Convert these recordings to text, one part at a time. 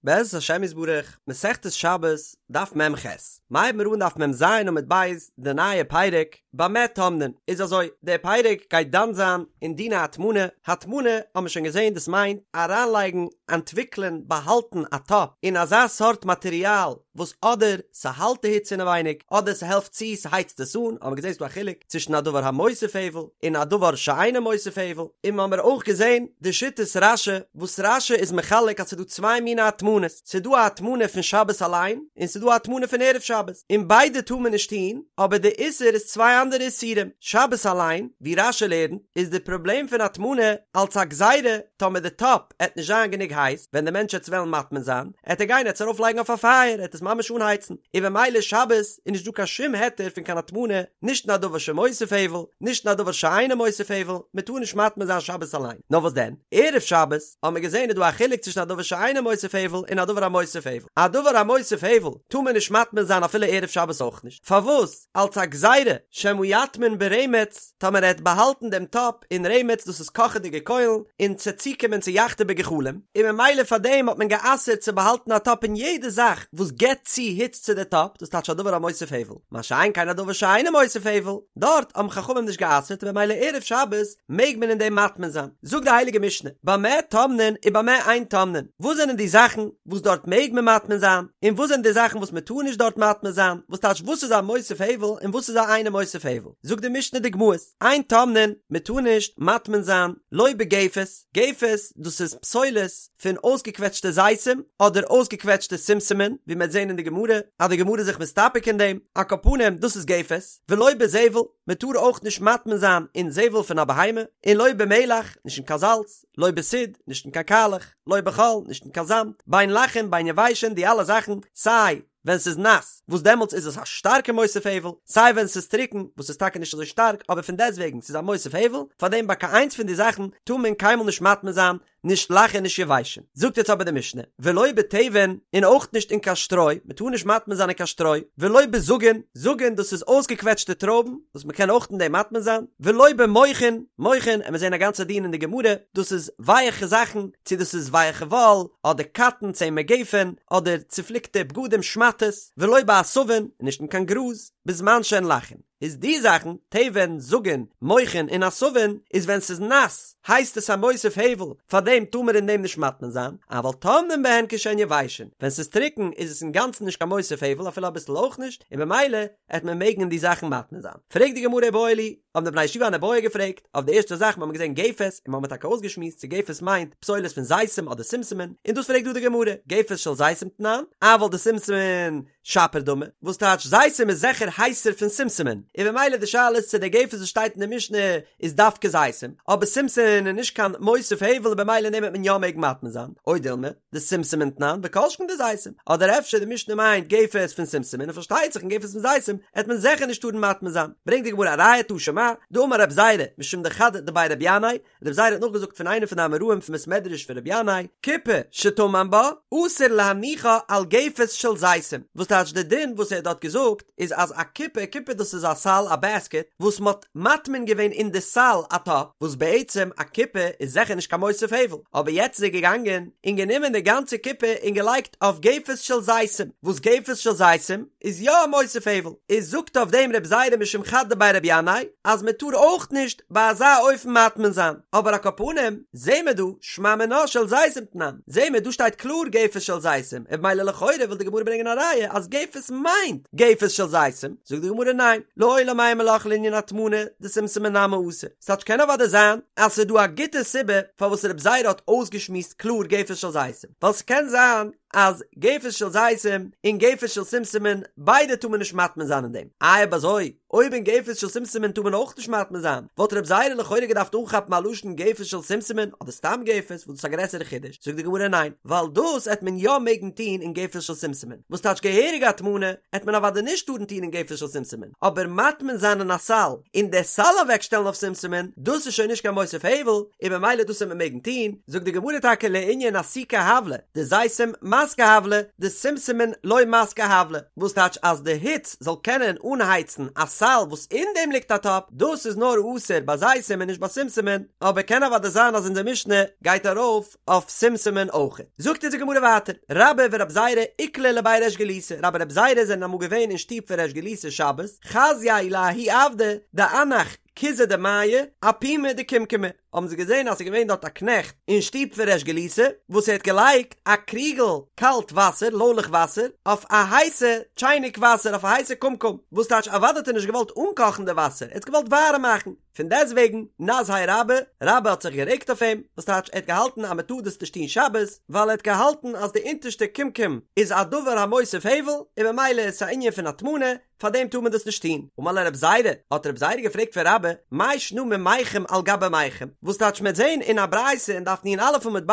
בעזרת השם יתברך, מסכת שבת, דף מ"ח. מ'הייבן מיר אן דף מ"ז עמוד ב', די נייע פרק, במה טומנין. איז אזוי, דער פרק גייט דן זיין אין דיני הטמנה, הטמנה האבן מיר שוין געזען דאס מיינט אריינלייגן, אנטוויקלען, באהאלטן א טאפ אין אזא סארט מאטריאל וואס אדער ס'האלט די היץ אינעווייניג אדער ס'העלפט צו ס'הייצט עס אן, האבן מיר געזען ס'דא א חילוק צווישן א דבר המוסיף הבל און א דבר שאינו מוסיף הבל, און מ'האמיר אויך געזען די שיטת רש"י וואס רש"י איז מחלק אז ס'דא צוויי מיני הטמנות, ס'דא א הטמנה פון שבת אליין און ס'דא א הטמנה פון ערב שבת, און ביידע טאר מען נישט טון, אבער די איסור איז צוויי אנדערע איסורים, שבת אליין, ווי רש"י לערנט, איז די פראבלעם פון הטמנה אלץ א גזירה טאמער די טאפ עט נישט זיין גענוג הייס, ווען די מענטש עט וועלן מטמין זיין, עט ער גיין עט עס ארויף לייגן אויף א פייער, עט עס ממש אנהייצן, און במילא שבת איז נישט דא קיין שום היתר פון קיין הטמנה, נישט אין א דבר שמוסיף הבל, נישט אין א דבר שאינו מוסיף הבל, מען טאר נישט מטמין זיין שבת אליין, נאר וואס דען, ערב שבת, האבן מיר געזען איז דא א חילוק צווישן א דבר שאינו מוסיף הבל און א דבר המוסיף הבל, א דבר המוסיף הבל טאר מען נישט מטמין זיין אפילו ערב שבת אויך נישט, פארוואס? אלס א גזירה שמא יטמין ברמץ, טאמער ער העט באהאלטן דעם טאפ אין רמץ דאס איז קאכעדיגע קוילן, און ס'עט צוקומען צו יחתה בגחלים, און ממילא פאר דעם האט מען גע'אסר'ט צו באהאלטן א טאפ אין יעדע זאך וואס געבט צו היץ צו די טאפ, דאס טייטש א דבר המוסיף הבל, מה שאין כן א דבר שאינו מוסיף הבל, דארט האבן חכמים נישט גע'אסר'ט און ממילא ערב שבת מעג מען אין דעם מטמין זיין. זאגט די הייליגע משנה, במה טומנין ובמה אין טומנין, וואס זענען די זאכן וואס דארט מעג מען מטמין זיין, און וואס זענען די זאכן וואס מען טאר נישט דארט מטמין זיין, וואס טייטש וואס איז א מוסיף הבל און וואס איז א אינו מוסיף הבל, זאגט די משנה דוגמאות, אין טומנין, מען טאר נישט מטמין זיין, לא בגפת, גפת דאס איז פסולת פון אויסגעקוועטשטע זיתים אדער אויסגעקוועטשטע שומשמין, ווי מען וועט זען אין די גמרא אז די גמרא איז זיך מסתפק אין דעם, על כל פנים דאס איז גפת, ולא בזבל, מען טאר אויך נישט מטמין זיין אין זבל פון א בהמה, און לא במלח, נישט אין קיין זאלץ, לא בסיד, נישט אין קיין קאלעך, לא בחול, נישט אין קיין זאמד, בין לחין בין יבשין, די אלע זאכן, סיי ווען ס'איז נאס, וואס דעמאלטס איז עס א שטארקע מוסיף הבל, סיי ווען ס'איז טרוקן, וואס איז טאקע נישט אזוי שטארק, אבער פון דעסטוועגן ס'איז א מוסיף הבל, פארדעם ביי קיין איינס פון די זאכן טאר מען קיינמאל נישט מטמין זיין, נישט לחין און נישט יבשין. זאגט יעצט אבער די משנה, ולא בתבן, און אויך נישט אין קיין שטרוי, מען טאר נישט מטמין זיין אין קיין שטרוי, ולא בזגין, זגין דאס איז אויסגעקוועטשטע טרויבן, וואס מען קען אויך אין דעם מטמין זיין, ולא במוכין, מוכין, עמיר זען א גאנצע דין אין די גמרא, דאס איז ווייעכע זאכן, צו דאס איז ווייעכע וואל, אדער קאטן, צמר גפן, אדער צופליקטע בגדים, שמאטעס, ולא בעשבים, און נישט אין קיין גראז, בזמן שהן לחין. איז די זאכן, תבן, זגין, מוכין און עשבין, איז ווען ס'איז נאס, הייסט עס א מוסיף הבל, פארדעם טאר מען אין דעם נישט מטמין זיין, אבל טומנין בהן כשהן יבשין, ווען ס'איז טרוקן איז עס אינגאנצן נישט קיין מוסיף הבל אפילו אביסל אויך נישט, און במילא עט מען מעגן אין די זאכן מטמין זיין. פרעגט די גמרא איבעיא להו, האבן די בני ישיבה אן איבעיא געפרעגט, אויף די ערשטע זאך מ'האמיר געזען גפת, און מ'האמיר טאקע אויסגעשמועסט צו גפת מיינט פסולת פון זיתים אדער שומשמין, און דאס פרעגט דא די גמרא, גפת של זיתים תנן, אבל דשומשמין שפיר דמי, וואס טייטש זיתים איז זיכער הייסער פון שומשמין, און במילא די שאלה איז צו די גפת וואס שטייט אין די משנה איז דווקא זיתים, אבער שומשמין איז נישט קיין מוסיף הבל און במילא אין דעם וועט מען יא מעגן מטמין זיין, או דילמא, דשומשמין תנן וכל שכן דזיתים, אדער אפשר די משנה מיינט גפת פון שומשמין און פארשטייט זיך אין גפת פון זיתים עט מען זיכער נישט טארן מטמין זיין, ברענגט די גמרא א ראיה תא שמע, דאמר רב זירא משום דחד דבי רבי ינאי, רב זירא האט נאכגעזאגט פון איינער פון די אמוראים פון בית מדרש פון רבי ינאי, קופה שטמן בה, אסור להניחה על גפת של זיתים, וואס טייטש די דין וואס ער האט דארט געזאגט איז אז א קופה, קופה דאס איז א סל א בעסקעט, וואס מען האט מטמין געווען אין די סל א טאפ, וואס בעצם א קופה איז זיכער נישט קיין מוסיף הבל, אבער יעצט איז ער געגאנגען און גענומען די גאנצע קופה און געלייגט אויף גפת של זיתים, וואס גפת של זיתים איז יא א מוסיף הבל, איז זאגט אויף דעם רב זירא משום חד דבי רבי ינאי אז מען טאר אויך נישט ביי אזא אופן מטמין זיין, אבער על כל פנים זעהן מיר דא שמע מינה של זיתים תנן, זעהן מיר דא שטייט קלאר גפת של זיתים, און במילא לכאורה וויל די גמרא ברענגען א ראיה אז גפת מיינט גפת של זיתים, זאגט די גמרא ניין, לעולם אימא לך לענין הטמנה דשומשמין נמי אסור, ס'טייטש קען אוודאי זיין אז ס'איז דא א גוטע סיבה פארוואס רב זירא האט אויסגעשמועסט קלאר גפת של זיתים, ווייל ס'קען זיין אז גפת של זיתים און גפת של שומשמין ביידע טאר מען נישט מטמין זיין אין דעם, איי אויב אזוי אויב אין גפת של שומשמין טאר מען אויך נישט מטמין זיין, וואלט רב זירא לכאורה געדארפט אנכאפן א לשון גפת של שומשמין אדער סתם גפת וואס דאס איז א גרעסערע חידוש, זאגט די גמרא ניין, ווייל דאס עט מען יא מעגן טון אין גפת של שומשמין, וואס טייטש געהעריגע הטמנה עט מען אוודאי נישט טארן טון אין גפת של שומשמין, אבער מטמין זיין אין א סל און די סל אוועקשטעלן אויף שומשמין, דאס איז שוין נישט קיין מוסיף הבל, און במילא דאס עט מען מעגן טון, זאגט די גמרא טאקע לענין אסוקי הבלא, דזיתים מנו. דמסקי הבלא דשומשמין לא מסקי הבלא, וואס טייטש אז די היץ זאל קענען אנהייצן א סל וואס אין דעם ליגט א טאפ, דאס איז נאר אסור ביי זיתים און נישט ביי שומשמין, אבער קען אוודאי זיין אז אונזער משנה גייט ארויף אויף שומשמין אויך. זאגט אונז די גמרא ווייטער, רבה ורב זירא איקלעו לבי ריש גלותא, רבה און רב זירא זענען אמאל געווען אין שטוב פון ריש גלותא שבת, חזיוה לההוא עבדא דאנח כוזא דמיא אפומא דקומקמא, האבן זיי געזען אז ס'איז געווען דארט א קנעכט אין שטוב פון ריש גלותא וואס ער האט געלייגט א קריגל קאלט וואסער, לוילעך וואסער, אויף א הייסע טשייניק וואסער, אויף א הייסע קומקום, וואס טייטש אוודאי האט ער נישט געוואלט אנקאכן די וואסער, ער האט עס געוואלט ווארעם מאכן, פון דעסטוועגן נזהיה רבה, רבה האט זיך גערעגט אויף אים, וואס טייטש ער האט געהאלטן אז מ'טאר דאס נישט טון שבת, ווייל ער האט געהאלטן אז די אונטערשטע קומקום איז א דבר המוסיף הבל, און ממילא איז עס א ענין פון הטמנה, פאר דעם טאר מען דאס נישט טון. אמר ליה רב זירא, האט רב זירא געפרעגט פון רבה, מאי שנא ממיחם על גבי מיחם, וואס טייטש מ'עט זען אין א ברייתא אין דף נ"א עמוד ב',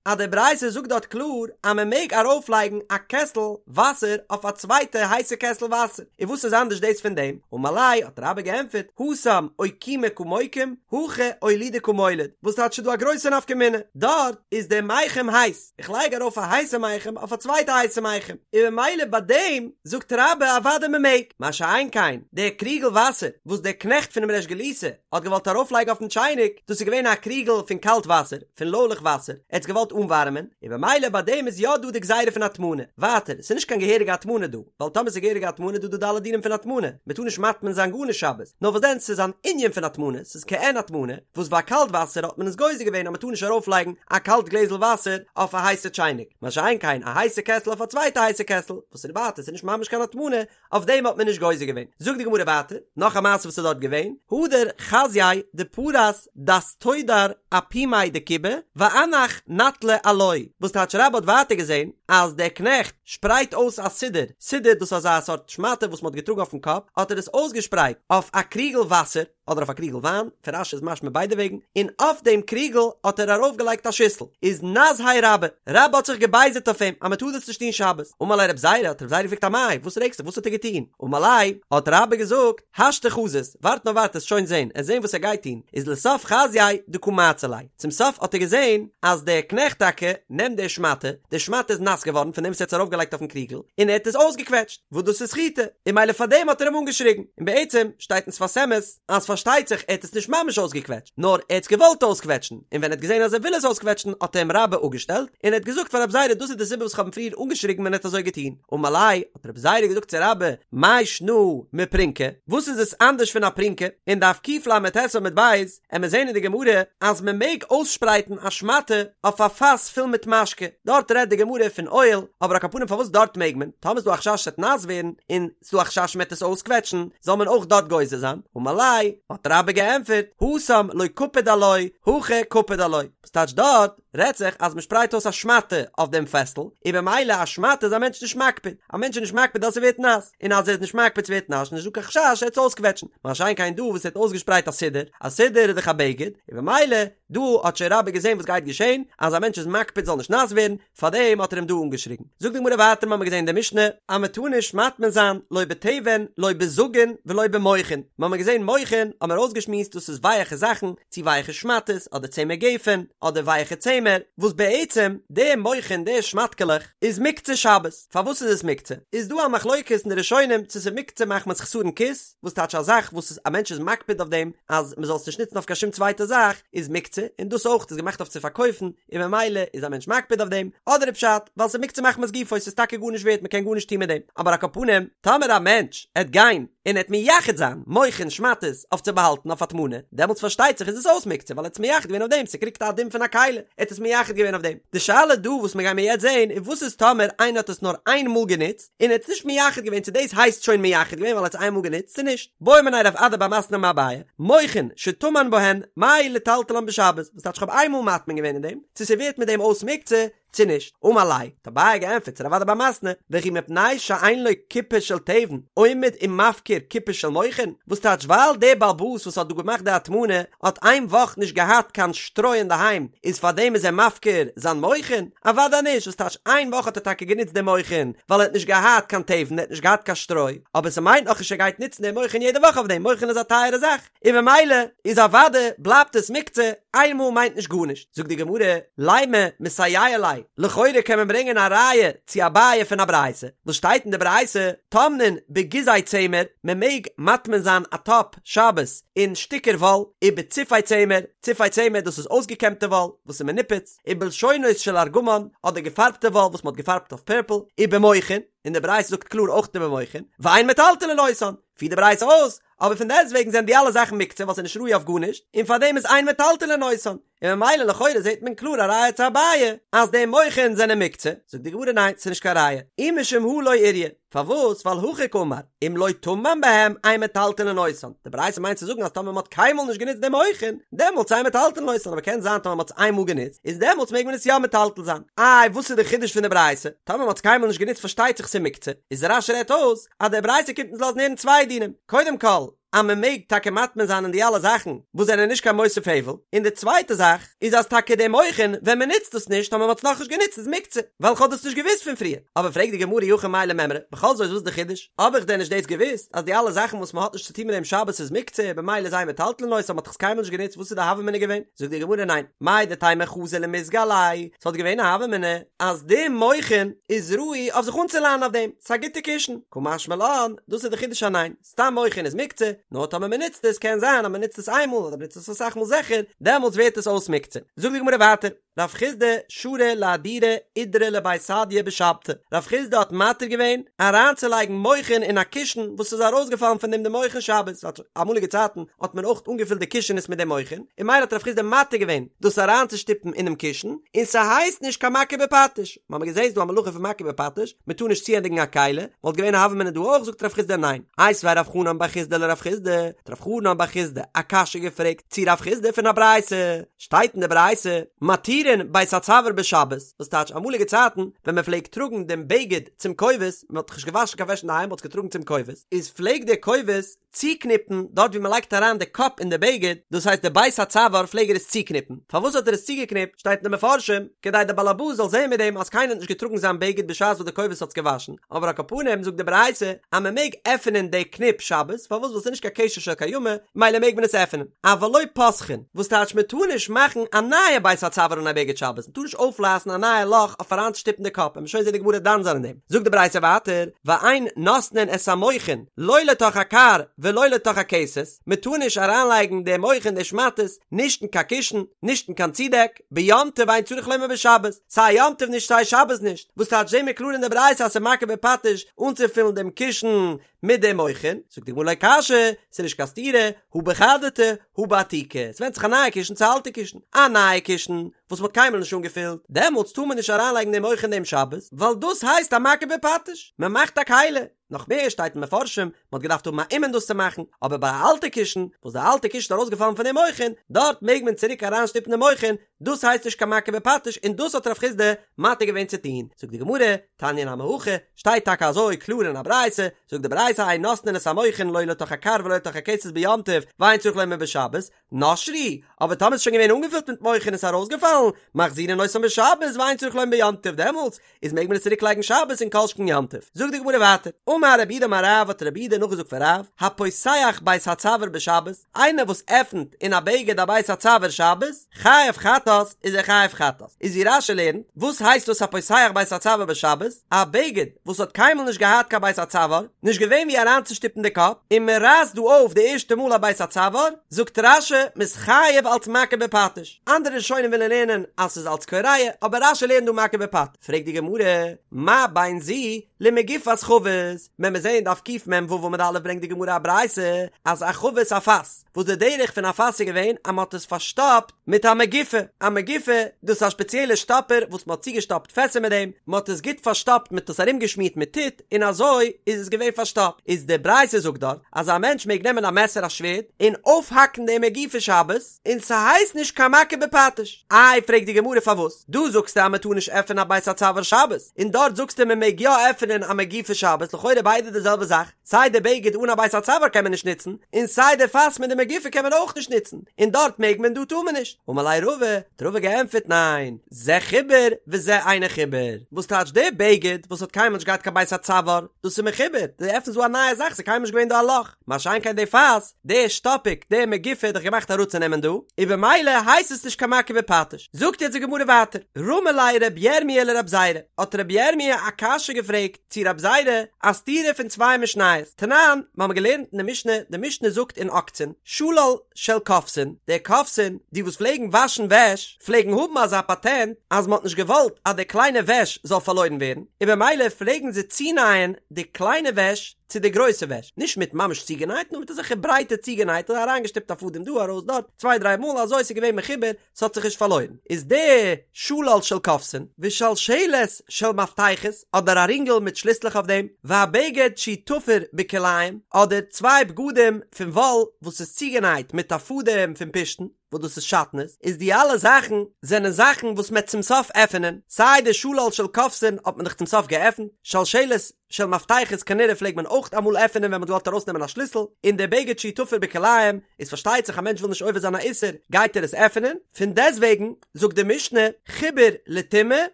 אז די ברייתא זאגט דארט קלאר אז מען מעג ארויפלייגן א קעסל וואסער אויף א צווייטע הייסע קעסל וואסער, און וואס איז אנדערש דאס פון דעם? אמר ליה, האט רבה געענטפערט, התם אוקומי קא מוקים, הכא אולודי קא מוליד, וואס טייטש ס'איז דא א גרויסע נפקא מינה, דארט איז דער מיחם הייס, איך לייג ארויף א הייסע מיחם אויף א צווייטע הייסע מיחם, און ממילא ביי דעם זאגט רבה אוודאי מען מעג, מה שאין כן דער קריגל וואסער וואס דער קנעכט פונעם ריש גלותא האט געוואלט ארויפלייגן אויפן טשייניק, דאס איז געווען א קריגל פון קאלט וואסער, פון לוילעך וואסער, ער האט עס געוואלט אנווארעמען, און במילא ביי דעם איז יא דא די גזירה פון הטמנה, ווייטער, ס'איז נישט קיין געהעריגע הטמנה דא, ווייל טאמער ס'איז געהעריגע הטמנה איז דא דא די אלע דינים פון הטמנה, מען טאר נישט מטמין זיין גארנישט שבת, נאר וואס דען ס'איז אן ענין פון הטמנה, ס'איז כעין הטמנה, וואס ביי קאלט וואסער האט מען עס גוזר געווען אז מען טאר נישט ארויפלייגן א קאלט גלעזל וואסער אויף א הייסע טשייניק, מה שאין כן א הייסע קעסל אויף א צווייטע הייסע קעסל, וואס איז ווייטער ס'איז נישט ממש קיין הטמנה, אויף דעם האט מען נישט גוזר געווען. זאגט די גמרא ווייטער, נאך א מעשה וואס איז דארט געווען, הדר חזייה דפרס דסתודר אפומיה דכובא ואנח נטלא עילויה, וואס טייטש רבה האט ווייטער געזען אז דער קנעכט שפרייט אויס א סודר, סודר דאס איז אזא סארט שמאטע וואס מען האט געטראגן אויפן קאפ, האט ער עס אויסגעשפרייט אויף א קריגל וואסער, אדער אויף א קריגל וויין, פון רש"י איז משמע ביידע וועגן, און אויף דעם קריגל האט ער ארויפגעלייגט א שיסל, איז נזהיה רבה, רבה האט זיך געבייזערט אויף אים אז מען טאר דאס נישט טון שבת, אמר ליה רב זירא, האט רב זירא געפרעגט אמאי, וואס רעגסט זיך, וואס האט ער געטון? אמר ליה, האט רבה געזאגט, השתא חזית, ווארט נאר ווארט עסט שוין זען, עסט זען וואס ער גייט טון, איז לסוף חזייה דקא מעצר ליה, צום סוף האט ער געזען אז דער קנעכט טאקע נעמט די שמאטע, די שמאטע איז נאס געווארן פון דעם וואס ער האט עס ארויפגעלייגט אויפן קריגל, און ער האט עס אויסגעקוועטשט, וואס דאס איז סחיטה, און ממילא פאר דעם האט ער אים אנגעשריגן, און בעצם שטייט אין שפת אמת אז פארשטייט זיך ער האט עס נישט ממש אויסגעקוועטשט, נאר ער האט עס געוואלט אויסקוועטשן, און ווען ער האט געזען אז ער וויל עס אויסקוועטשן האט אים רבה אפגעשטעלט, און ער האט געזאגט פאר רב זירא דאס איז די סיבה וואס כ'האב אים פריער אנגעשריגן ווען ער האט אזוי געטון, אמר ליה, האט רב זירא געזאגט צו רבה, מאי שנא מפרונקא, וואס איז עס אנדערש פון א פרונקא, אין דף קל"ט עמוד ב', עמיר זעהן אין די גמרא אז מען מעג אויסשפרייטן א שמאטע אויף א פאס פול מיט משקה, דארט רעדט די גמרא פון אויל, אבער על כל פנים פארוואס דארט מעג מען, טאמער איז דא א חשש ס'עט נאס ווערן, און ס'דא א חשש מ'עט עס אויסקוועטשן, זאל מען אויך דארט גוזר זיין, אמר ליה, האט רבה געענטפערט, התם לא קפיד עילויה, הכא קפיד עילויה, וואס טייטש דארט? רעדט זיך אז מען שפרייט אויס א שמאטע אויף דעם פעסל, און במילא א שמאטע איז א מענטש נישט מקפיד, א מענטש איז נישט מקפיד אז ס'ווערט נאס, און אז ער איז נישט מקפיד ס'ווערט נאס איז נישט דא קיין חשש ער וועט עס אויסקוועטשן, מה שאין כן דא וואס ער האט אויסגעשפרייט א סודר, א סודר איז דאך א בגד, און במילא דא האט שוין רבה געזען וואס גייט געשען, אז א מענטש איז מקפיד זאל נישט נאס ווערן, פארדעם האט ער אים דא אנגעשריגן. זאגט די גמרא ווייטער מ'האמיר געזען אין די משנה אז מען טאר נישט מטמין זיין לא בתבן לא בזגין ולא במוכין, מ'האמיר געזען מוכין האמיר אויסגעשמועסט דאס איז ווייעכע זאכן, צו ווייעכע שמאטעס אדער צמר גפן אדער ווייעכע צמר, וואס בעצם די מוכין די שמאטקעלעך איז מוקצה שבת, פארוואס איז עס מוקצה? איז דא א מחלוקת אין די ראשונים צו ס'איז מוקצה מחמת חסרון כיס, וואס טייטש א זאך וואס א מענטש איז מקפיד אויף דעם אז מ'זאל עס נישט נוצן אויף קיין שום צווייטע זאך איז מוקצה, און דאס אויך איז געמאכט אויף צו פארקויפן און ממילא איז א מענטש מקפיד אויף דעם, אדער איז פשט ווייל ס'איז מוקצה מחמת גופו ס'איז טאקע גארנישט ווערט מ'קען גארנישט טון מיט דעם, אבער על כל פנים טאמער א מענטש עט גיין און ער עט מייחד זיין מוכין שמאטעס אויף צו באהאלטן אויף הטמנה, דעמאלטס פארשטייט זיך איז עס אויס מוקצה ווייל ער האט עס מייחד געווען אויף דעם, ס'קריגט א דין פון א כלי, ער האט עס מייחד געווען אויף דעם. די שאלה דא וואס מיר גיימיר יעצט זעהן איז וואס איז טאמער איינער האט עס נאר איין מאל גענוצט און ער האט עס נישט מייחד געווען צו דאס הייסט שוין מייחד געווען ווייל ער האט עס איין מאל גענוצט צו נישט. בעא מיניה רב אדא בר מתנה מאביי, מוכין שטמן בהן, מהו לטלטלן בשבת, וואס טייטש כ'האב איין מאל מטמין געווען אין דעם, צו ס'ווערט מיט דעם אויס מוקצה, צו נישט? אמר ליה, האט אביי געענטפערט צו רב אדא בר מתנה, וכי מפני שאין לו קופה של תבן, עומד ומפקיר קופה של מוכין? וואס טייטש ווייל דער בעל הבית וואס האט דא געמאכט די הטמנה האט איין וואך נישט געהאט קיין שטרוי אינדערהיים איז פארדעם איז ער מפקיר זיין מוכין? אוודאי נישט, וואס טייטש איין וואך האט ער טאקע גענוצט די מוכין ווייל ער האט נישט געהאט קיין תבן ער האט נישט געהאט קיין שטרוי, אבער ס'מיינט נאכנישט ער גייט נוצן די מוכין יעדע וואך אויף דעם, מוכין איז א טייערע זאך. און במילא איז אוודאי בלייבט עס מוקצה. איינמאל מיינט נישט גארנישט, זאגט די גמרא, לימא מסייע ליה, לכאורה קען מען ברענגען א ראיה צו אביי פון א ברייתא, וואס שטייט אין די ברייתא, טומנין בגיזי צמר, מען מעג מטמין זיין א טאפ שבת אין שטיקער וואל, ובציפי צמר, ציפי צמר דאס איז אויסגעקעמטע וואל וואס איז מנופץ, ובלשונות של ארגמן, אדער געפארבטע וואל וואס מען האט געפארבט אויף פערפל, ובמוכין, און די ברייתא זאגט קלאר אויך ובמוכין, ואין מטלטלין אותן, פירט די ברייתא אויס, אבער פון דעסטוועגן זענען די אלע זאכן מוקצה ווייל ס'איז נישט ראוי אויף גארנישט, און פארדעם איז אין מטלטלין אותן, און ממילא לכאורה זעט מען קלאר א ראיה צו אביי אז די מוכין זענען מוקצה, זאגט די גמרא ניין ס'איז נישט קיין ראיה, אי משום הא לא איריא, פארוואס ווייל הכי קאמר, אם לא טמן בהם אין מטלטלין אותן, די ברייתא מיינט צו זאגן אז טאמער מ'האט קיינמאל נישט גענוצט די מוכין, דעמאלטס אין מטלטלין אותן, אבער קען זיין טאמער מ'האט עס איינמאל גענוצט, איז דעמאלטס מעג מען עס יא מטלטל זיין. איי וואס איז די חידוש פון די ברייתא? טאמער מ'האט עס קיינמאל נישט גענוצט פארשטייט זיך ס'איז מוקצה, איז רש"י רעדט אויס אז די ברייתא קומט אונז לאזן הערן צוויי דינים, קודם כל אז מען מעג טאקע מטמין זיין אין די אלע זאכן וואס זענען נישט קיין מוסיף הבל, און די צווייטע זאך איז אז טאקע די מוכין ווען מען נוצט עס נישט טאמער מען האט עס נאכנישט גענוצט איז מוקצה, ווייל כ'האב דאס נישט געוואוסט פון פריער. אבער פרעגט די גמרא אי הכי מאי למימרא, בכל זאת וואס איז די חידוש? האב איך דען נישט דאס געוואוסט אז די אלע זאכן וואס מען האט נישט צוטון מיט דעם שבת איז מוקצה במילא איז אין מטלטלין אותן, מען האט דאך עס קיינמאל נישט גענוצט וואס איז די הוה אמינא געווען? זאגט די גמרא ניין, מהו דתימא חזי למיזגא עלייהו, ס'וואלט געווען א הוה אמינא אז די מוכין איז ראוי אויף זיך אנצולאנען אויף דעם, ס'איז א גוטע קישן, קא משמע לן, דאס איז די חידוש אז ניין, סתם מוכין איז מוקצה, נאר טאמער מ'נוצט עס, קען זיין אז מ'נוצט עס איינמאל אדער מ'נוצט עס אסאך מאל זיכער, דעמאלטס ווערט עס אויס מוקצה. זאגט די גמרא ווייטער, רב חסדא שרא לאהדורי אידרא לבי סדיא בשבתא, רב חסדא האט מתיר געווען אריינצולייגן מוכין אין א קישן וואס איז ארויסגעפאלן פון דעם די מוכין שבת, ווייל אמאליגע צייטן האט מען אויך אנגעפילט די קישענעס מיט די מוכין, און ממילא האט רב חסדא מתיר געווען דאס אריינצושטופן אינעם קישן, און ס'הייסט נישט קיין מכה בפטיש. מ'האמיר געזעהן ס'דא א מלאכה פון מכה בפטיש, מ'טאר נישט צוענדיגן א כלי, וואלט געווען א הוה אמינא דא אויך, זאגט רב חסדא ניין. איתיביה רב חנן בר חסדא לרב חסדא, האט רב חנן בר חסדא א קשיא געפרעגט צו רב חסדא פון א ברייתא, שטייט אין די ברייתא, מתירין בית הצוואר בשבת, וואס טייטש אמאליגע צייטן ווען מ'פלעגט טראגן דעם בגד צום כובס, מ'האט דאך נישט געוואשן קיין וועש אינדערהיים מ'האט עס געטראגן צום כובס, איז פלעגט דער כובס צוקניפן דארט ווי מען לייגט אריין די קאפ אין די בגד, דאס הייסט די בית הצוואר פלעג ער עס צוקניפן, פארוואס האט ער עס צוגעקניפט שטייט אין די מפרשים, כדי די באלעבאס זאל זען מיט דעם אז קיינער האט נישט געטראגן זיין בגד בשעת וואס די כובס האט עס געוואשן, אבער על כל פנים זאגט די ברייתא אז מען מעג עפענען די קניפ שבת, פארוואס ווייל ס'איז נישט קיין קשר של קיימא, מילא מעג מען עס עפענען, אבל לא פותחין, וואס טייטש מען טאר נישט מאכן א נייע בית הצוואר אין א בגד שבת, מען טאר נישט אויפרייסן א נייע לאך אויף אריינצושטופן די קאפ, וועט מען שוין זען די גמרא דן זיין אין דעם. זאגט די ברייתא ווייטער, ואין נותנין את המוכין לא לתוך הכר ולא לתוך הכסת, מען טאר נישט אריינלייגן די מוכין די שמאטעס נישט אין קיין קישן, נישט אין קיין צודעק, ביום טוב ואין צריך לומר בשבת, סיי יום טוב נישט סיי שבת נישט, וואס טייטש זעהן מיר קלאר אין די ברייתא אז ס'איז מכה בפטיש אנצופילן דעם קישן מיט די מוכין, זאגט די גמרא לא קשיא, ס'איז נישט קיין סתירה, הא בחדתי הא בעתיקי, ס'ווענדט זיך א נייע קישן צו א אלטע קישן, א נייע קישן וואס מ'האט קיינמאל נישט אנגעפילט, דעמאלטס טאר מען נישט אריינלייגן די מוכין דעם שבת, ווייל דאס הייסט א מכה בפטיש, מ'מאכט א כלי, נאך מער שטייט אין מפרשים, מ'האט געדארפט האבן א אומן דאס צו מאכן, אבער ביי א אלטע קישן, וואס די אלטע קישן איז ארויסגעפאלן פון די מוכין, דארט מעג מען צוריק אריינשטופן די מוכין, דאס הייסט נישט קיין מכה בפטיש און דאס האט רב חסדא מתיר געווען צו טון, זאגט די גמרא, תניא נמי הכי, שטייט טאקע אזוי קלאר אין א ברייתא, זאגט די ברייתא אין נותנין את המוכין לא לתוך הכר ולא לתוך הכסת ביום טוב, ואין צריך לומר בשבת, נשרו, אבער טאמער איז שוין געווען אנגעפילט מיט מוכין און ס'איז ארויסגעפאלן, מחזירין אותן בשבת ואין צריך לומר ביום טוב, דעמאלטס איז מעג מען עס צוריק לייגן שבת און כל שכן יום טוב. זאגט די גמרא ווייטער, אמר רב יהודה אמר רב האט רב יהודה נאכגעזאגט פון רב, הפותח בית הצוואר בשבת, איינער וואס עפנט אין א בגד א בית הצוואר שבת, חייב חטאת, איז ער חייב חטאת. איז ווי רש"י לערנט, וואס הייסט דאס הפותח בית הצוואר בשבת? א בגד וואס האט קיינמאל נישט געהאט קיין בית הצוואר, נישט געווען ווי אריינצושטופן די קאפ, און מען רייסט דא אויף די ערשטע מאל א בית הצוואר, זאגט רש"י, מ'איז חייב אלץ מכה בפטיש. אנדערע ראשונים ווילן לערנען אז ס'איז אלץ קורע, אבער רש"י לערנט דא מכה בפטיש. פרעגט די גמרא, מה בין זו למגופת חבית? ווען מיר זעען דף קמ"ו עמוד א' ברענגט די גמרא א ברייתא אז א חבית א פאס, וואס די דרך פון א פאס איז געווען אז מ'האט עס פארשטאפט מיט א מגופה, א מגופה דאס איז א שפעציעלע שטאפער וואס מ'האט צוגעשטאפט פעסער מיט דעם, מ'האט עס גוט פארשטאפט מ'האט עס ארומגעשמירט מיט טיט און אזוי איז עס געווען פארשטאפט, איז די ברייתא זאגט דארט אז א מענטש מעג נעמען א מעסער א שווערד און אויפהאקן די מגופה שבת און ס'הייסט נישט קיין מכה בפטיש, איי פרעגט די גמרא פארוואס דא זאגסטו אז מ'טאר נישט עפענען א בית הצוואר שבת און דארט זאגסטו מ'מעג יא עפענען. עפענען א מגופה שבת, לכאורה ביידע די זעלבע זאך, סיי די בגד אן א בית הצוואר קען מען נישט נוצן, און סיי די פאס מיט די מגופה קען מען אויך נישט נוצן, און דארט מעג מען דא טאר מען נישט. אמר ליה רבא, האט רבא געענטפערט ניין, זה חיבור וזה אינו חיבור, וואס טייטש די בגד וואס האט קיינמאל נישט געהאט קיין בית הצוואר, דאס איז מחובר, דו עפנסט דא א נייע זאך, ס'איז קיינמאל נישט געווען דא א לאך, מה שאין כן די פאס, די שטאפיק, די מגופה איז דאך געמאכט אראפצונעמען דא, און במילא הייסט עס נישט קיין מכה בפטיש. זאגט יעצט די גמרא ווייטער, רמי ליה רבי ירמי' לרבי זירא, האט רבי ירמי' א קשיא געפרעגט צו רבי זירא, א סתירה פון צוויי משניות, תנן, מיר האבן געלערנט אין די משנה, די משנה זאגט אין עוקצין, שלל של כובסין, די כובסין, די וואס פלעגן וואשן וועש, פלעגן האבן אזא פאטענט אז מען האט נישט געוואלט אז די קליינע וועש זאל פארלוירן ווערן, און במילא פלעגן זיי צונייען די קליינע וועש צו די גרויסע וועש, נישט מיט ממש צוגענייט, נאר מיט אזעלכע ברייטע צוגענייט, אזוי אריינגעשטופט א פאדעם דא ארויס דארט, צוויי דריי מאל, אזוי ס'איז געווען מחובר, ס'האט זיך נישט פארלוירן. איז די שלל של כובסין, ושלשלת של מפתחות, אדער א רינגל מיט שליסלעך אויף דעם, והבגד שהוא תפור בכלאיים, אדער צוויי בגדים פון וואל וואס איז צוגענייט מיט א פאדעם פון פשתן, וואס דאס איז שעטנז, איז די אלע זאכן זענען זאכן וואס מ'עט צום סוף עפענען, סיי די שלל של כובסין האט מען דאך צום סוף געעפנט, שלשלת של מפתחות כנראה פלעגט מען אויך אמאל עפענען ווען מ'האט געוואלט ארויסנעמען א שליסל, און די בגד שהוא תפור בכלאיים, איז פארשטייט זיך א מענטש וויל נישט עובר זיין א איסור גייט ער עס עפענען, פון דעסטוועגן זאגט די משנה חיבור לטומאה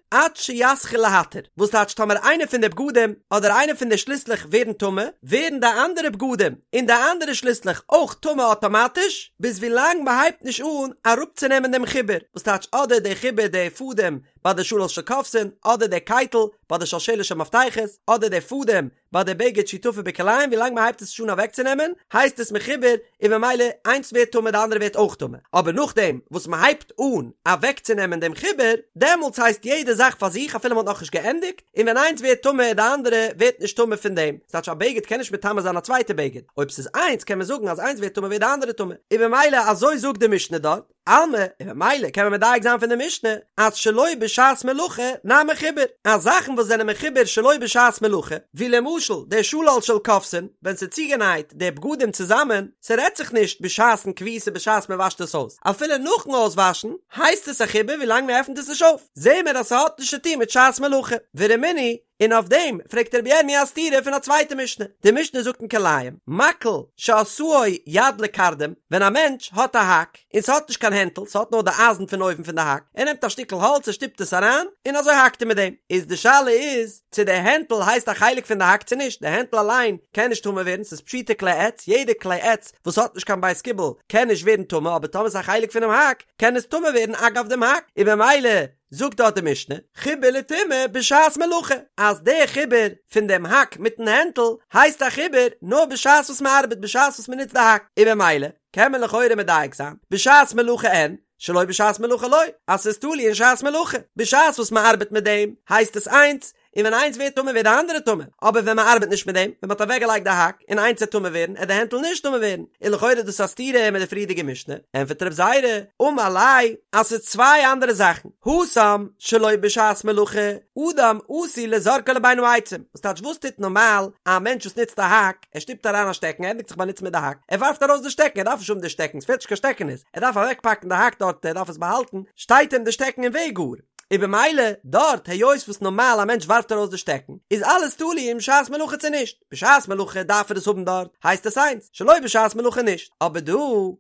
עד שיתחיל להתיר, וואס טייטש טאמער איינע פון די בגדים אדער איינע פון די שליסלעך ווערן טמא, ווערן די אנדערע בגדים און די אנדערע שליסלעך אויך טמא אטאמאטיש, ביז ווילאנג מ'הייבט נישט אן אראפצונעמען דעם חיבור, וואס טייטש אדער די חיבור די פאדעם ביי די שלל של כובסין, אדער די קייטל ביי די שלשלת של מפתחות, אדער די פאדעם ביי די בגד שהוא תפור בכלאיים ווילאנג מען הייבט עס נישט אן אוועקצונעמען הייסט עס מחובר און ממילא איינס ווערט טמא די אנדערע ווערט אויך טמא, אבער נאכדעם וואס מען הייבט אן אוועקצונעמען דעם חיבור דעמאלטס הייסט יעדע זאך פאר זיך אפילו מען האט נאכנישט געענדיגט, און ווען איינס ווערט טמא די אנדערע ווערט נישט טמא פון דעם, ס'טייטש א בגד קען נישט מטמא זיין א צווייטע בגד, אויב ס'איז איינס קען מען זאגן אז איינס ווערט טמא ווערט די אנדערע טמא, און ממילא אזוי זאגט די משנה דארט. אלמא, און ממילא קען מען מדייק זיין פון די משנה אז שלא בשעת מלאכה נמי חיבור, אז זאכן וואס זענען מחובר שלא בשעת מלאכה, ווי למשל די שלל של כובסין, ווען ס'איז צוגענייט די בגדים צוזאמען, ס'רעדט זיך נישט בשעת'ן כביסה בשעת מ'וואשט עס אויס, אפילו נאכן אויסוואשן הייסט עס א חיבור ווילאנג מ'עפנט עס נישט אויף, זעהן מיר אז ס'האט נישט צוטון מיט שעת מלאכה. ורמינהי, און אויף דעם פרעגט רבי ירמי' א סתירה פון א צווייטע משנה, די משנה זאגט אין כלאים, מקל שעשאו יד לקרדום, ווען א מענטש האט א האק, און ס'האט נישט קיין הענטל, ס'האט נאר די אייזן פון אויבן פון די האק, ער נעמט א שטיקל האלץ ער שטופט עס אריין, און אזוי האקט ער מיט דעם, איז די שאלה איז, צו די הענטל הייסט א חלק פון די האק צו נישט, די הענטל אליין קען נישט טמא ווערן, ס'איז פשוטי כלי עץ, יעדע כלי עץ וואס האט נישט קיין בית קיבול קען נישט ווערן טמא, אבער טאמער ס'איז א חלק פונעם האק, קען עס טמא ווערן אגב דעם האק, און במילא זאגט דארט די משנה, חיבור לטומאה בשעת מלאכה, אז דער חיבור פון דעם האק מיטן הענטל הייסט א חיבור נאר בשעת וואס מען ארבעט בשעת וואס מען נוצט די האק, און במילא קען מען לכאורה מדייק זיין, בשעת מלאכה אין, שלא בשעת מלאכה לא, אז ס'איז תלוי אין שעת מלאכה, בשעת וואס מען ארבעט מיט דעם הייסט עס איינס, און ווען איינס ווערט טמא ווערט די אנדערע טמא, אבער ווען מען ארבעט נישט מיט דעם, ווען מען האט אוועקגעלייגט די האק, און איינס וועט טמא ווערן, עט די הענטל נישט טמא ווערן, און לכאורה איז דאס א סתירה מיט די פריערדיגע משנה, ענטפערט רב זירא, אמר ליה, אז ס'איז צוויי אנדערע זאכן, התם שלא בשעת מלאכה, אדם עשוי לזורקו לבין העצים, וואס טייטש וואס טוט נארמאל א מענטש וואס נוצט א האק, ער שטופט אריין א שטעקן, ער ענדיגט זיך באנוצן מיט די האק, ער ווארפט ארויס די שטעקן, ער דארף נישט האבן די שטעקן, ס'פעלט נישט קיין שטעקענעס, ער דארף אוועקפאקן די האק דארט, ער דארף עס באהאלטן, שטייט אים די שטעקן אין וועג גאר. און במילא דארט היות וואס נארמאל א מענטש ווארפט ארויס די שטעקן איז אלעס תלוי אין שעת מלאכה צו נישט, בשעת מלאכה דארף ער עס האבן דארט הייסט עס איינס, שלא בשעת מלאכה נישט, אבער דא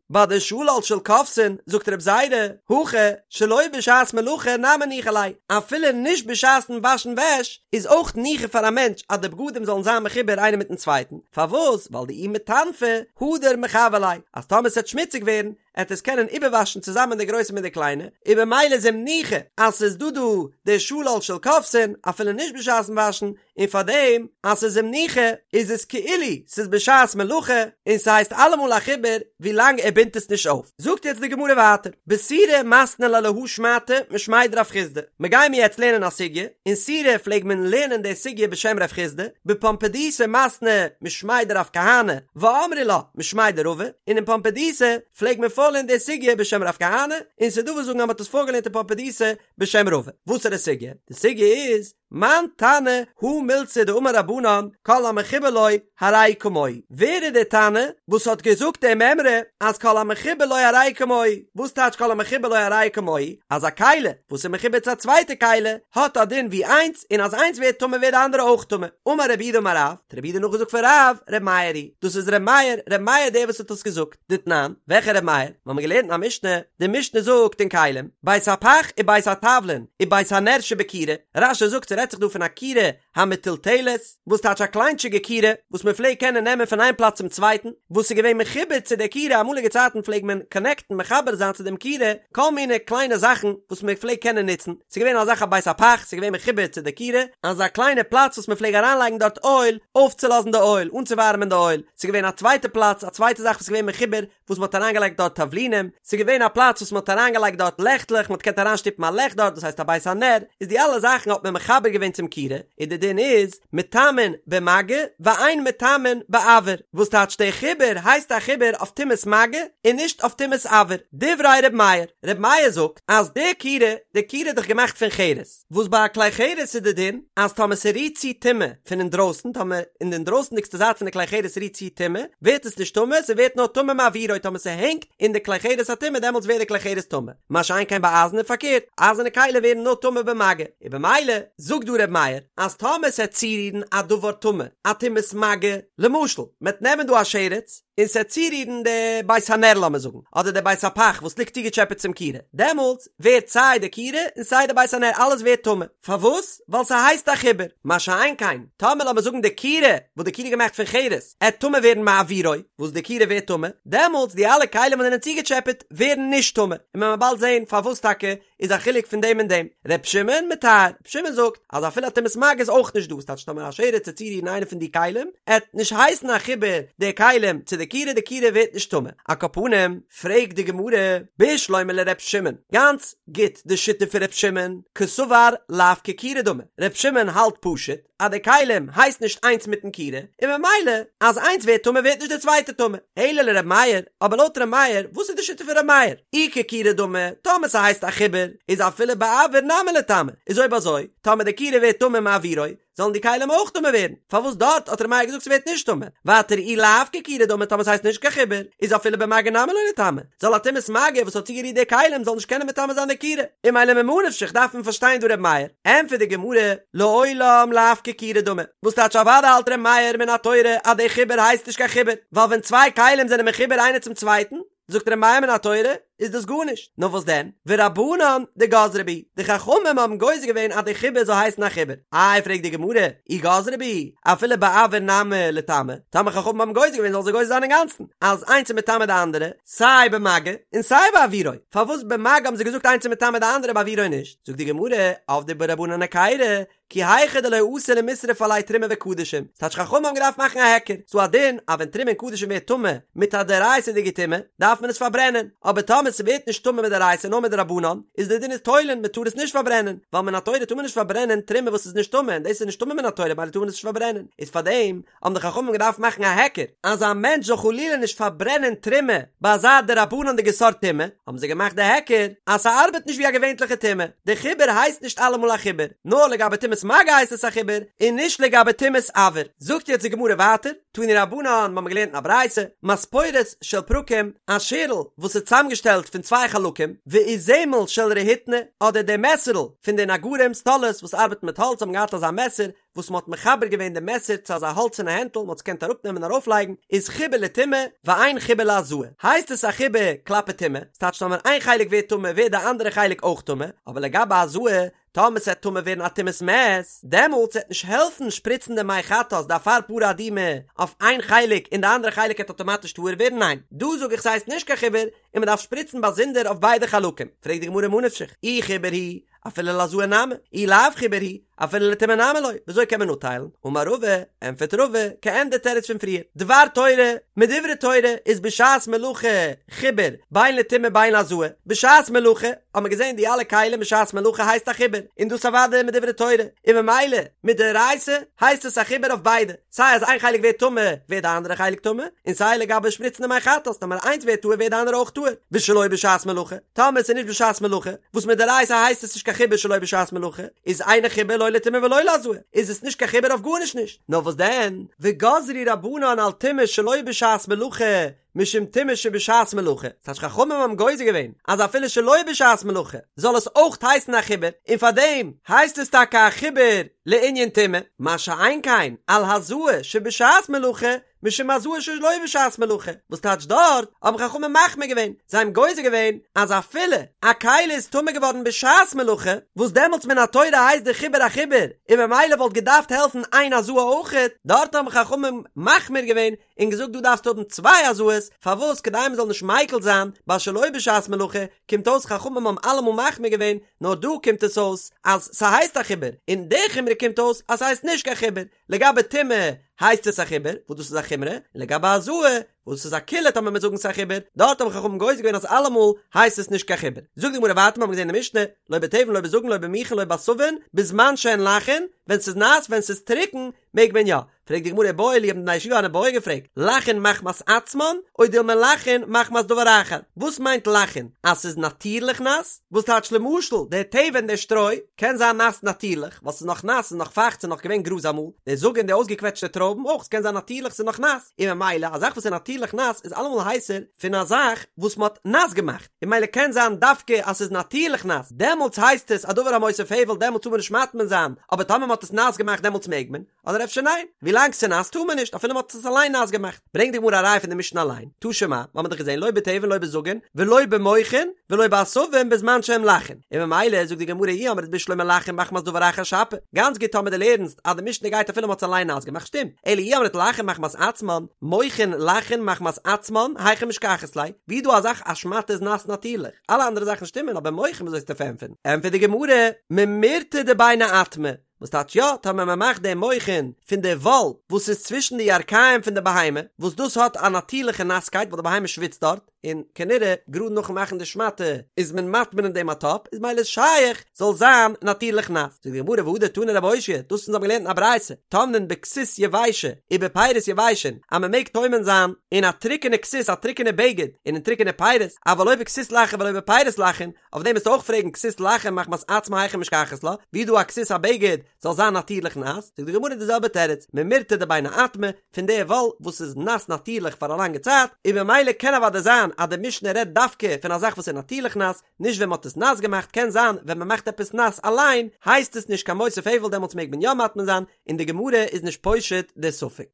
ביי די שלל של כובסין זאגט רב זירא הכא שלא בשעת מלאכה נמי ניחא ליה, אפילו נישט בשעת'ן וואשן וועש איז אויך ניחא פאר א מענטש אז די בגדים זאלן זיין מחובר איינער מיטן צווייטן, פארוואס ווייל דאי מיטנפי הדר מחוור ליה, אז טאמער ס'עט שמוציג ווערן עט עס קענען איבערוואשן צוזאמען די גרויסע מיט די קליינע, און במילא איז אים ניחא אז ס'איז דא דא די שלל של כובסין אפילו נישט בשעת'ן וואשן, און פארדעם אז ס'איז אים ניחא איז עס כאילו ס'איז בשעת מלאכה און ס'הייסט אלעמאל א חיבור ווילאנג ער בינדט עס נישט אויף. זאגט יעצט די גמרא ווייטער, בסורא מתנו לה להא שמעתא משמיה דרב חסדא, מ'גיימיר יעצט לערנען א סוגיא, אין סורא פלעג מען לערנען די סוגיא בשם רב חסדא, בפומבדיתא מתנו משמיה דרב כהנא, ואמרי לה משמיה דרבא, און אין פומבדיתא פלעג מען פארלערנען די סוגיא בשם רב כהנא, און ס'דא וואס זאגן אז מ'האט עס פארגעלערנט אין פומבדיתא בשם רבא. וואסערע סוגיא? די סוגיא איז. מאן תנא הא מילתא דאמור רבנן כל המחובר לו הרי כמוהו, ווער איז דער תנא וואס האט געזאגט די מימרא אז כל המחובר לו הרי כמוהו, וואס טייטש כל המחובר לו הרי כמוהו, אז א כלי וואס איז מחובר צו א צווייטע כלי האט א דין ווי איינס און אז איינס ווערט טמא ווערט די אנדערע אויך טמא, אמר רב יהודה אמר רב, האט רב יהודה נאכגעזאגט פון רב, ר' מאיר היא, דאס איז ר' מאיר, ר' מאיר דער וואס האט עס געזאגט. דתנן, וועלכע ר' מאיר? מיר האבן געלערנט אין א משנה, די משנה זאגט אין כלים, בית הפך ובית התבלין ובית הנר שבכירה, רש"י זאגט ס'רעדט זיך דא פון א כירה המטולטלת, וואס טייטש א קליינטשיגע כירה וואס מען פלעגט קענען נעמען פון איין פלאץ צום צווייטן, וואס איז געווען מחובר צו דער כירה, אמאליגע צייטן פלעג מען קאנעקטן מחבר זיין צו דעם כירה כל מיני קליינע זאכן וואס מען פלעגט קענען נוצן, ס'איז געווען אזא זאך א בית הפך, ס'איז געווען מחובר צו די כירה, אזא קליינע פלאץ וואס מען פלעג אריינלייגן דארט אויל, אויפצולאזן די אויל, אנצואווארעמען די אויל, ס'איז געווען א צווייטע פלאץ, א צווייטע זאך וואס איז געווען מחובר, וואס מ'האט אריינגעלייגט דארט תבלינים, ס'איז געווען א פלאץ וואס מ'האט אריינגעלייגט דארט לעכטלעך, מ'האט געקענט אריינשטופן א לעכט דארט, דאס הייסט א בית הנר, איז די אלע זאכן האט מען מחבר געווען צום כירה, און די דין איז, מטמאין במגע, ואין מטמאין באויר, וואס טייטש דער חיבור הייסט א חיבור אויף טומאת מגע, און נישט אויף טומאת אויר. דברי ר' מאיר, ר' מאיר זאגט אז די כירה, די כירה איז דאך געמאכט פון חרס, וואס ביי א כלי חרס איז די דין אז טאמער ס'רירט צו טומאה פון אינדרויסן, טאמער אין די אינדרויסנדיגסטע זייט פון די כלי חרס רירט צו טומאה, ווערט עס נישט טמא, ס'ווערט נאר טמא מאוירו, טאמער ס'הענגט אין די כלי חרס א טומאה דעמאלטס ווערט די כלי חרס טמא, מה שאין כן ביי אייזן איז פארקערט, אייזערנע כלים ווערן נאר טמא במגע, און במילא זאגט דא ר' מאיר אז טאמער ס'עט צורירן א דבר טמא, א טומאת מגע, למשל מ'עט נעמען דא א שרץ, און ס'עט צורירן די בית הנר לאמיר זאגן, אדער די בית הפך וואס ליגט צוגעטשעפעט צום כירה, דעמאלטס ווערט סיי די כירה און סיי די בית הנר אלעס ווערט טמא, פארוואס? ווייל ס'הייסט א חיבור, מה שאין כן טאמער לאמיר זאגן די כירה, וואס די כירה איז געמאכט פון חרס, עט טמא ווערן מאוירו, וואס די כירה ווערט טמא, דעמאלטס די אלע כלים וואס זענען צוגעטשעפעט ווערן נישט טמא, און מען וועט באלד זען פארוואס טאקע איז א חילוק פון דעם און דעם. ר' שמעון מטהר, ר' שמעון זאגט אז אפילו א טומאת מגע איז אויך נישט דא, ס'טייטש טאמער א שרץ עט צורירן איינע פון די כלים, עט נישט הייסן א חיבור די כלים צו די כירה, די כירה ווערט נישט טמא. על כל פנים, פרעגט די גמרא, בשלמא לר' שמעון, גאנץ גוט די שיטה פון ר' שמעון, קסבר לאו ככירה דמי, ר' שמעון האלט פשוט אז די כלים הייסט נישט איינס מיטן כירה, און ממילא אז איינס ווערט טמא ווערט נישט די צווייטע טמא, אלא לר' מאיר, אבער לויט ר' מאיר, וואס איז די שיטה פון ר' מאיר? אי ככירה דמי, טאמער ס'הייסט א חיבור, איז אפילו באויר נמי ליטמא, איז אויב אזוי, טאמער די כירה ווערט טמא מאוירו, זאלן די כלים אויך טמא ווערן, פארוואס דארט האט ר' מאיר געזאגט ס'ווערט נישט טמא? ווייטער אי לאו ככירה דמי טאמער ס'הייסט נישט קיין חיבור, איז אפילו במגע נמי לא ליטמא, זאל א טומאת מגע וואס האט צוגערירט די כלים זאל נישט קענען מטמא זיין די כירה, און ממילא ממה נפשך דארף מען פארשטיין דא ר' מאיר, ענטפערט די גמרא, לעולם לאו ככירה דמי, וואס טייטש אוודאי האלט ר' מאיר מן התורה אז די חיבור הייסט נישט קיין חיבור, ווייל ווען צוויי כלים זענען מחובר איינער צום צווייטן, זאגט ר' מאיר מן התורה, איז דאס גארנישט, נאר וואס דען, ורבנן דגזרו בהו, די חכמים האבן גוזר געווען אז די חיבור זאל הייסן א חיבור, איי פרעגט די גמרא, אי גזרו בהו, אפילו באויר נמי ליטמא, טאמער חכמים האבן גוזר געווען זאלן זיי גוזר זיין אינגאנצן, אז איינס איז מטמא די אנדערע, סיי במגע און סיי באוירו, פארוואס במגע האבן זיי געזאגט איינס איז מטמא די אנדערע באוירו נישט, זאגט די גמרא, עבדו בהו רבנן היכירא, כי היכי דלא אתי למישרף עליה תרומה וקדשים, ס'טייטש חכמים האבן געדארפט מאכן א היכר, ס'דא א דין אז ווען תרומה און קדשים ווערט טמא מיט א דאורייתא'דיגע טומאה דארף מען עס פארברענען, אבער טאמער ס'ווערט נישט טמא מדאורייתא נאר מדרבנן, איז די דין איז תולין מ'טאר עס נישט פארברענען, ווייל מן התורה טאר מען נישט פארברענען תרומה וואס איז נישט טמא און דאס איז נישט טמא מן התורה ממילא טאר מען עס נישט פארברענען, איז פארדעם האבן די חכמים געדארפט מאכן א היכר אז א מענטש זאל חלילה נישט פארברענען תרומה ביי אזא דרבנן'דיגע סארט טומאה, האבן זיי געמאכט די היכר אז ס'ארבעט נישט ווי א געווענטליכע טומאה, די חיבור הייסט נישט אלעמאל א חיבור, נאר לגבי טומאת מגע הייסט עס א חיבור, און נישט לגבי טומאת אויר. זאגט יעצט די גמרא ווייטער, תנו רבנן, מ'האמיר געלערנט אין א ברייתא, מספורת של פרקים, א שערל וואס איז צוזאמגעשטעלט פון צוויי חלקים, ואיזמל של רהיטני, אדער די מעסערל פון די נגרים, סטאלערס וואס ארבעטן מיט האלץ האבן געהאט אזא מעסער, וואס מ'האט מחבר געווען די מעסער צו אזא האלצערנע הענטל, מ'האט עס געקענט אראפנעמען און ארויפלייגן, איז חיבור לטומאה, ואין חיבור להזאה. הייסט עס א חיבור כלפי טומאה, ס'טייטש טאמער איין חלק ווערט טמא ווערט די אנדערע חלק אויך טמא, אבער לגבי הזאה, טאמער ס'עט טמא ווערן א טומאת מת, דעמאלטס וועט נישט העלפן שפריצן די מי חטאת די אפר פרה אדומה אויף איין חלק און די אנדערע חלק עט אטאמאטיש טהור ווערן, ניין, דא זאג איך ס'הייסט נישט קיין חיבור און מ'דארף שפריצן באזונדער אויף ביידע חלקים, פרעגט די גמרא ממה נפשך, אי חיבור הוא, אפילו להזאה נמי, אי לאו חיבור הוא, אפילו לטומאה נמי לא, וויאזוי קען מען אפטיילן? אמר רבא, ענטפערט רבא, כעין די תירוץ פון פריער, דבר תורה, מדברי תורה איז בשעת מלאכה חיבור בין לטומאה בין להזאה, בשעת מלאכה האט מען געזען די אלע כלים בשעת מלאכה הייסט א חיבור, און דאס אוודאי מדברי תורה, און ממילא מדאורייתא הייסט עס א חיבור אויף ביידע. סיי אז איין חלק ווערט טמא ווערט די אנדערע חלק טמא, און סיי לגבי שפריצן די מי חטאת טאמער איינס ווערט טהור ווערט די אנדערע אויך טהור, ושלא בשעת מלאכה, טאמער עס איז נישט בשעת מלאכה, וואס מדאורייתא הייסט עס נישט קיין. חיבור שלא בשעת מלאכה, איז אינו חיבור לא לטומאה ולא להזאה, איז עס נישט קיין חיבור אויף גארנישט נישט, נאר וואס דען, וגזרו רבנן על טומאה שלא בשעת מלאכה, משום טומאה שבשעת מלאכה, ס'טייטש חכמים האבן גוזר געווען אז אפילו שלא בשעת מלאכה זאל עס אויך הייסן א חיבור, און פארדעם הייסט עס טאקע א חיבור לענין טומאה, מה שאין כן על הזאה שבשעת מלאכה, משום הזאה שלא בשעת מלאכה, וואס טייטש דארט האבן חכמים מחמיר געווען, זיי האבן גוזר געווען אז אפילו א כלי איז טמא געווארן בשעת מלאכה, וואס דעמאלטס מן התורה הייסט די חיבור א חיבור, און ממילא וואלט געדארפט העלפן איין הזאה אויכעט, דארט האבן חכמים מחמיר געווען און געזאגט דא דארפסטו האבן צוויי הזאות, פארוואס כדי מען זאל נישט מיקל זיין ביי שלא בשעת מלאכה, קומט אויס חכמים האבן אלעמאל מחמיר געווען, נאר דא קומט עס אויס אז ס'הייסט א חיבור, און די חומרא קומט אויס אז ס'הייסט נישט קיין חיבור, לגבי טומאה הייסט עס א חיבור, וואס דאס איז א חומרא, און לגבי הזאה, וואס דאס איז א קולא טאמער מיר זאגן ס'איז א חיבור, דארט האבן חכמים גוזר געווען אז אלעמאל הייסט עס נישט קיין חיבור. זאגט די גמרא ווייטער, מיר האבן געזען אין די משנה, לא בתבן לא בזגין לא במוכין לא בעשבין, בזמן שהן לחין, ווען ס'איז נאס, ווען ס'איז טרוקן, מעג מען יא. פרעגט די גמרא איבעיא להו האבן די בני ישיבה אן איבעיא געפרעגט, לחין מחמת עצמן, או דילמא לחין מחמת דבר אחר, וואס מיינט לחין? אז ס'איז נאטירליך נאס? וואס טייטש למשל דער תבן דער שטרוי קען זיין נאס נאטירליך ווייל ס'איז נאך נאס ס'איז נאך פייכט ס'איז נאך געווען גראז אמאל, דער זגין די אויסגעקוועטשטע טרויבן אויך ס'קען זיין נאטירליך ס'איז נאך נאס, און ממילא א זאך וואס איז נאטירליך נאס איז אלעמאל הייסער פון א זאך וואס מ'האט נאס געמאכט, און ממילא קען זיין דווקא אז ס'איז נאטירליך נאס דעמאלטס הייסט עס א דבר המוסיף הבל דעמאלטס טאר מען נישט מטמין זיין, אבער טאמער מ'האט עס נאס געמאכט דעמאלטס מעג מען. אדער אפשר ניין, ווילאנג ס'נאס טאר מען נישט אפילו מ'האט עס אליין נאס געמאכט. ברענגט די גמרא א ראיה פון די משנה אליין, תא שמע, מ'האמיר דאך געזען לא בתבן לא בזגין ולא במוכין ולא בעשבים בזמן שהם לחין, און ממילא זאגט די גמרא אי אמרת בשלמא לחין מחמת דבר אחר שפיר, גאנץ גוט טאמער דו לערנסט אז די משנה גייט אפילו מ'האט עס אליין נאס געמאכט שטימט, אלא אי אמרת לחין מחמת עצמן, מוכין לחין מחמת עצמן, היכי משכחת ליה, ווי איז דא א זאך א שמאטע איז נאס נאטירליך, אלע אנדערע זאכן שטימען אבער מוכין וויאזוי וועסטו פארענטפערן? ענטפערט די גמרא, ממירתא דביני אטמי, וואס טייטש יא, טאמער מען מאכט די מוכין פון די וואל וואס איז צווישן די ירכיים פון די בהמה, וואס דאס האט א נאטירליכע נאסקייט ווייל די בהמה שוויצט דארט, און כנראה גראד נאכן מאכן די שמאטע איז מען מטמין אין דעם א טאפ, איז ממילא שייך זאל זיין נאטירליך נאס. זאגט די גמרא והדר תני רבי אושעיא, דאס אונז האבן געלערנט אין א ברייתא, טומנין בכסות יבשה ובפירות יבשין, אז מען מעג טומן זיין אין א טרוקענע כסות א טרוקענע בגד און אין טרוקענע פירות, אבל לא בכסות לחה ולא בפירות לחין, אויף דעם וועסטו אויך פרעגן כסות לחה מחמת עצמה היכי משכחת לה, ווי איז דא א כסות א בגד זאל זיין נאטירליך נאס, זאגט די גמרא די זעלבע תירוץ, ממירתא דביני אטמי, פון די וואל וואס איז נאס נאטירליך פאר א לאנגע צייט, און ממילא קען אוודאי זיין אז די משנה רעדט דווקא פון א זאך וואס איז נאטירליך נאס, נישט ווען מען האט עס נאס געמאכט, קען זיין ווען מען מאכט עפעס נאס אליין הייסט עס נישט קיין מוסיף הבל דעמאלטס מעג מען יא מטמין זיין, און די גמרא איז נישט פושט די ספק.